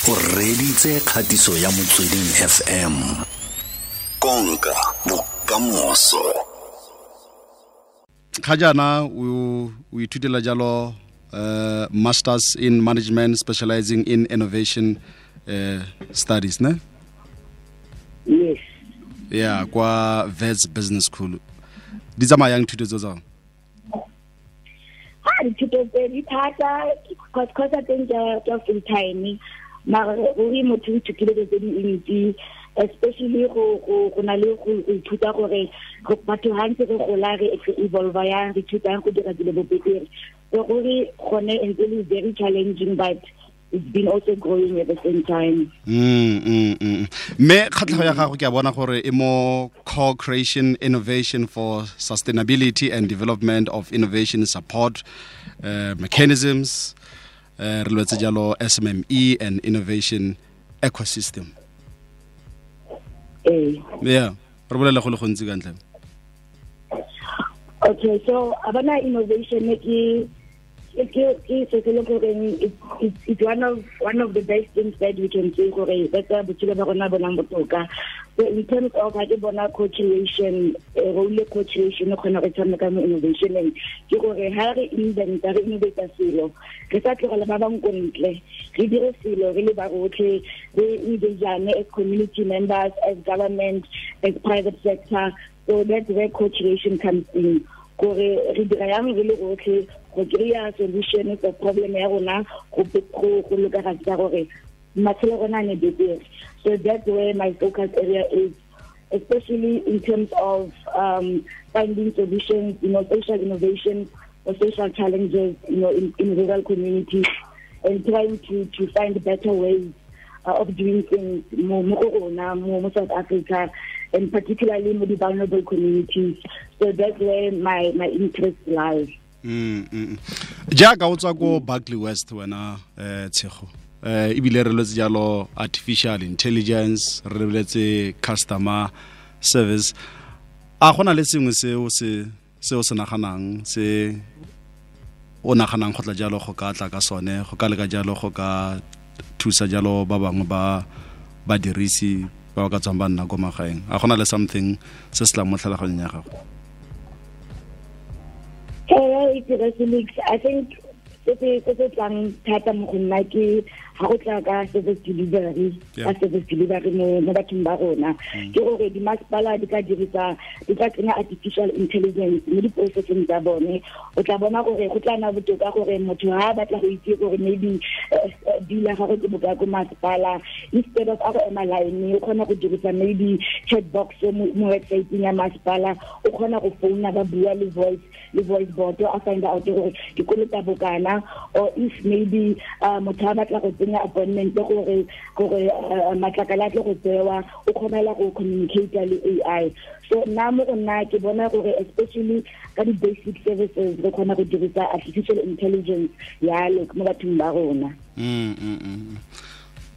O reditse kgatiso ya Motsweding FM. Konka bokamoso. Ga jaana o ithutela jalo masters in management specializing in innovation studies, ne? Yes. Yeah, kwa Wits Business School. Di tsamaya yang thuto tse tsao? Ha dithuto tse di thata cause I think tsa full time. Mara ruri motho o ithutile dilo tse dintsi, especially go na le go ithuta gore batho ha ntse re gola re evolve yang, re ithutang go dira dilo bo betere. So ruri gone e ntse le very challenging, but it's been also growing at the same time. Mme kgatlhego ya gago ke a bona gore e mo co-creation innovation for sustainability and development of innovation support mechanisms, re lwetse jalo SMME and innovation ecosystem. Yeah, re bolele go le gontsi ka ntle. Okay, so abana innovation ke it's one of the best things that we can say gore that's a botshelo ba rona bonang botoka. So in terms of ha ke bona co-creation, role co-creation kgona go tshameka mo innovationeng, ke gore ha re inventa, re innovate selo, re sa tlogela ba bang ko ntle, re dire selo re le ba rotlhe, re engage as community members, as government, as private sector. So that's where co-creation comes in. Gore re dira yang re le rotlhe go kry-a solution for problem ya rona, go lokagatsa gore matshelo a rona a ne betere. So that's where my focus area is, especially in terms of finding solutions, you know, social innovation or social challenges, you know, in rural communities, and trying to find better ways of doing things mo go rona, mo South Africa, and particularly mo di vulnerable communities. So that's where my interest lies. Jaaka o tswa ko Barkly West wena, Tshego, ebile re lwetse jalo artificial intelligence, re lebeletse customer service. A gona le sengwe se o se naganang, se o naganang go tla jalo go ka tla ka sone, go ka leka jalo go ka thusa jalo ba bangwe ba badirisi ba ba ka tswang ba nna ko magaeng? A gona le something se se tlang mo tlhaloganyong ya gago? I think se se tlang thata mo go nna ke ha go tla ka service delivery, ka service delivery mo bathong ba rona, ke gore di masepala di ka dirisa, di ka tsenya artificial intelligence mo di-processing tsa bone. O tla bona gore go tla nna botoka gore motho ha a batla go itse gore maybe bill ya gagwe ke bokae ko masepala, instead of a go ema line, o kgona go dirisa maybe chat box mo website-eng ya masepala, o kgona go founa ba bua le voice bot, a find out gore ke kolota bokana, or if maybe motho a batla go tsenya appointment gore matlakala a tle go tsewa, o kgonela go communicate le AI. So nna mo go nna ke bona gore especially ka di-basic services re kgona go dirisa artificial intelligence yalo mo bathong ba rona.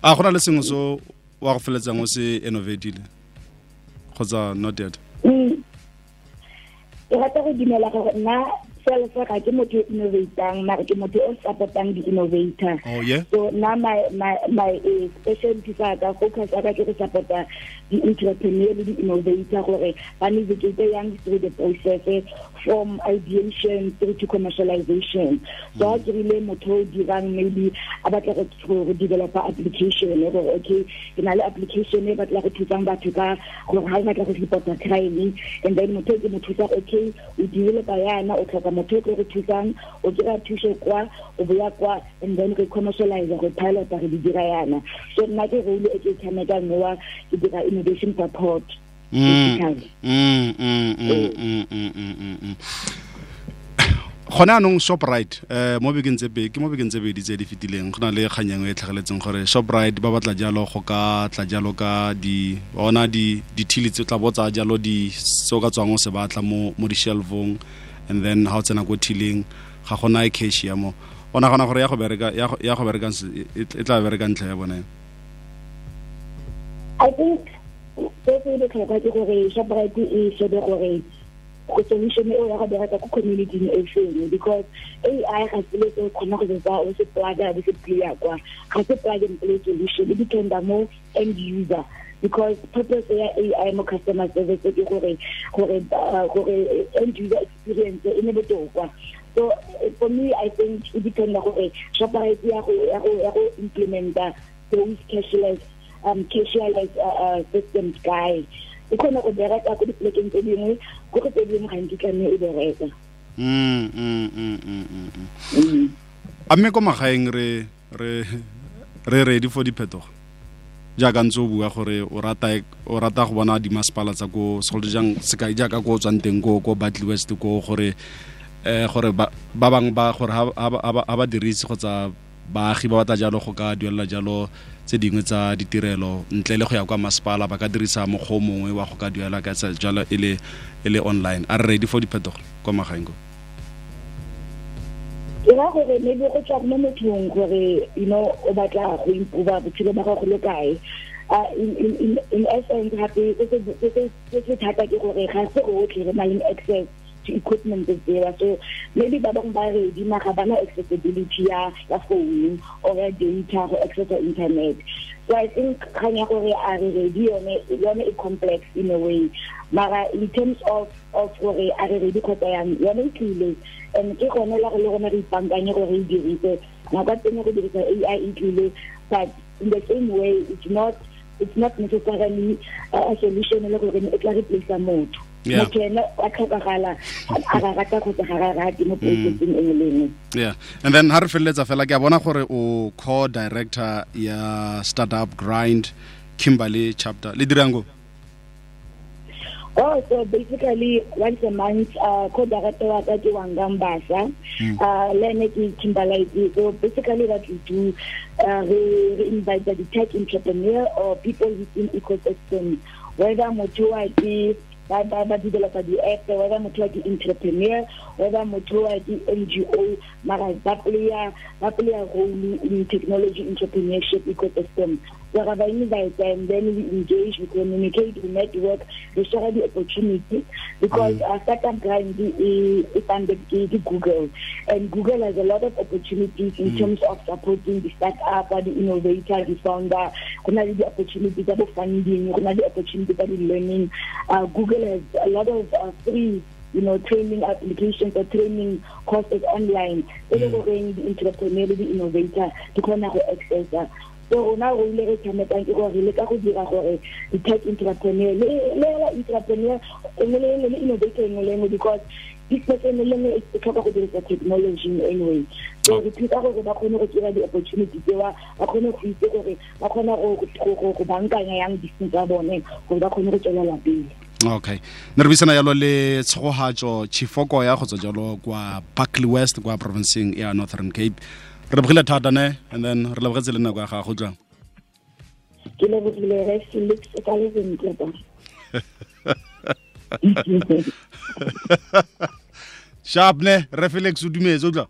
A gona le sengwe so wa go feletsang o se innovatile kgotsa not yet? Ke rata go dumela gore nna self ga ke motho o innovatang, mara ke motho o support-ang di-innovator. Oh, yeah? So nna my specialty sa ka, focus ya ka ke go support-a di-entrepreneur le di-innovator gore ba navigate yang through the process from ideation through to commercialization. So ha ke rile motho o dirang maybe a batla go developer application, gore okay, ke na le application e batla go thusang batho ka gore ha o batla go report-a crime, and then motho ke mo thusa, okay, o developer yana, o tlhoka motho o tlo re thusang, o kry-a thuso kwa, o boya kwa, and then re commercialize, re pilot, re di dira yana. So nna ke role e ke e tshamekang mowa, ke dira innovation support. Gone anong Shoprite, mo bekeng tse pedi, ke mo bekeng tse pedi tse di fetileng, go na le kgang e nngwe e tlhageletseng gore Shoprite ba batla jalo go ka tla jalo ka di, ona di, dithili tse tla bo tsaya jalo di, se o ka tswang o se batla mo di-shelf-ong, and then ha o tsena ko thiling ga gona e cash ya mo. O nagana gore ya go bereka, ya go, ya go bereka e, e tla bereka ntlha ya bone? I think se se botlhokwa ke gore Shoprite e shebe gore Go solution eo ya go bereka ko community e feng, because AI ga se le se kgona go tsa o se plug-a bo se play kwa, ga se plug and play solution. E dependa mo end user, because purpose ya AI mo customer service ke gore end user experience e ne botoka. So for me, I think e dependa gore Shoprite ya go implementa those cashless systems kae. E kgona go bereka ko dipolekeng tse dingwe, ko go tse dingwe ga nkitla mme e bereka. A mme ko magaeng re ready for diphetogo, jaaka ntse o bua gore o rata go bona dimasepala tsa ko, segolo jang sekai jaaka ko o tswang teng ko Barkly West, ko gore ba bangwe ba gore ha ba dirise kgotsa baagi ba batla jalo go ka duelela jalo tse dingwe tsa ditirelo ntle le go ya kwa masepala, ba ka dirisa mokgwa o mongwe wa go ka duela ka tsa jalo e le online. A re ready for diphetogo kwa magaeng ko? Ke ra gore maybe go tswa mo mothong gore o batla go improve botshelo ba gago le kae. In essence, gape se thata ke gore ga se rotlhe re na le access to equipment tseo. So maybe ba bangwe ba ready, mara bana accessibility ya phone or ya data go access internet. So I think kgang ya gore a re ready, yone e complex in a way, mara in terms of gore a re ready kgotsa yang, yone e tlile, and ke gone la go le rona re ipankanye gore re e dirise nako ya teng. Go dirisa AI e tlile, but in the same way it's not necessarily a solution le gore e tla replace motho. Motho ene wa tlhokagala, a ga rata kgotsa ga ga rate, mo processing e nngwe le nngwe. Yeah, and then ha re feleletsa fela, ke a bona gore o co-director ya Startup Grind Kimberley chapter. Le dirang go? Oh, so basically once a month, co-director wa ka ke Wanga Mbasa, le ene ke Kimberley. So basically what we do, we invite the tech entrepreneur or people within ecosystem, whether motho wa ke ba developer di-app, whether motho wa ke entrepreneur, whether motho wa ke NGO, mara ba playa role in technology entrepreneurship ecosystem. So ra ba invite and then we engage, we communicate, we network, we share the opportunity, because Startup Grind e funded ke Google, and Google has a lot of opportunities in terms of supporting the startup, the innovator, the founder. Go na le di-opportunity tsa bo funding, go na le opportunity tsa di-learning. Google has a lot of free training applications or training courses online e le goreng di-entrepreneur le di-innovator di kgona go accessa. So rona re ile re tshamekang ke gore re leka go dira gore di-tech entrepreneur le hela entrepreneur e nngwe le nngwe le innovator e nngwe le nngwe, because business e nngwe le nngwe e tlhoka go dirisa technology in anyway. So re thusa gore ba kgone go kry-a di-opportunity tsewa, ba kgone go itse gore ba kgona go bankanya yang business tsa bone gore ba kgone go tswelela pele. Okay, ne re buisana jalo le Tshegohatso Chifoko ya go tswa jalo kwa Barkly West kwa provinceng ya Northern Cape. Re lebogile thata ne, and then re lebogetse le nako ya gago jang. Ke lebogile, re Felix, o ka le sentle ba. Sharp ne, re Felix o dumetse o tla.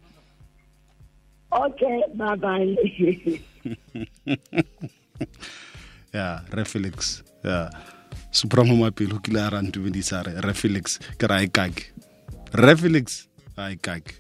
Okay, bye bye. Ya re Felix ya Supremo Mapelo kile a ra ntumedisa, re Felix, ke ra e kake, re Felix a e kake.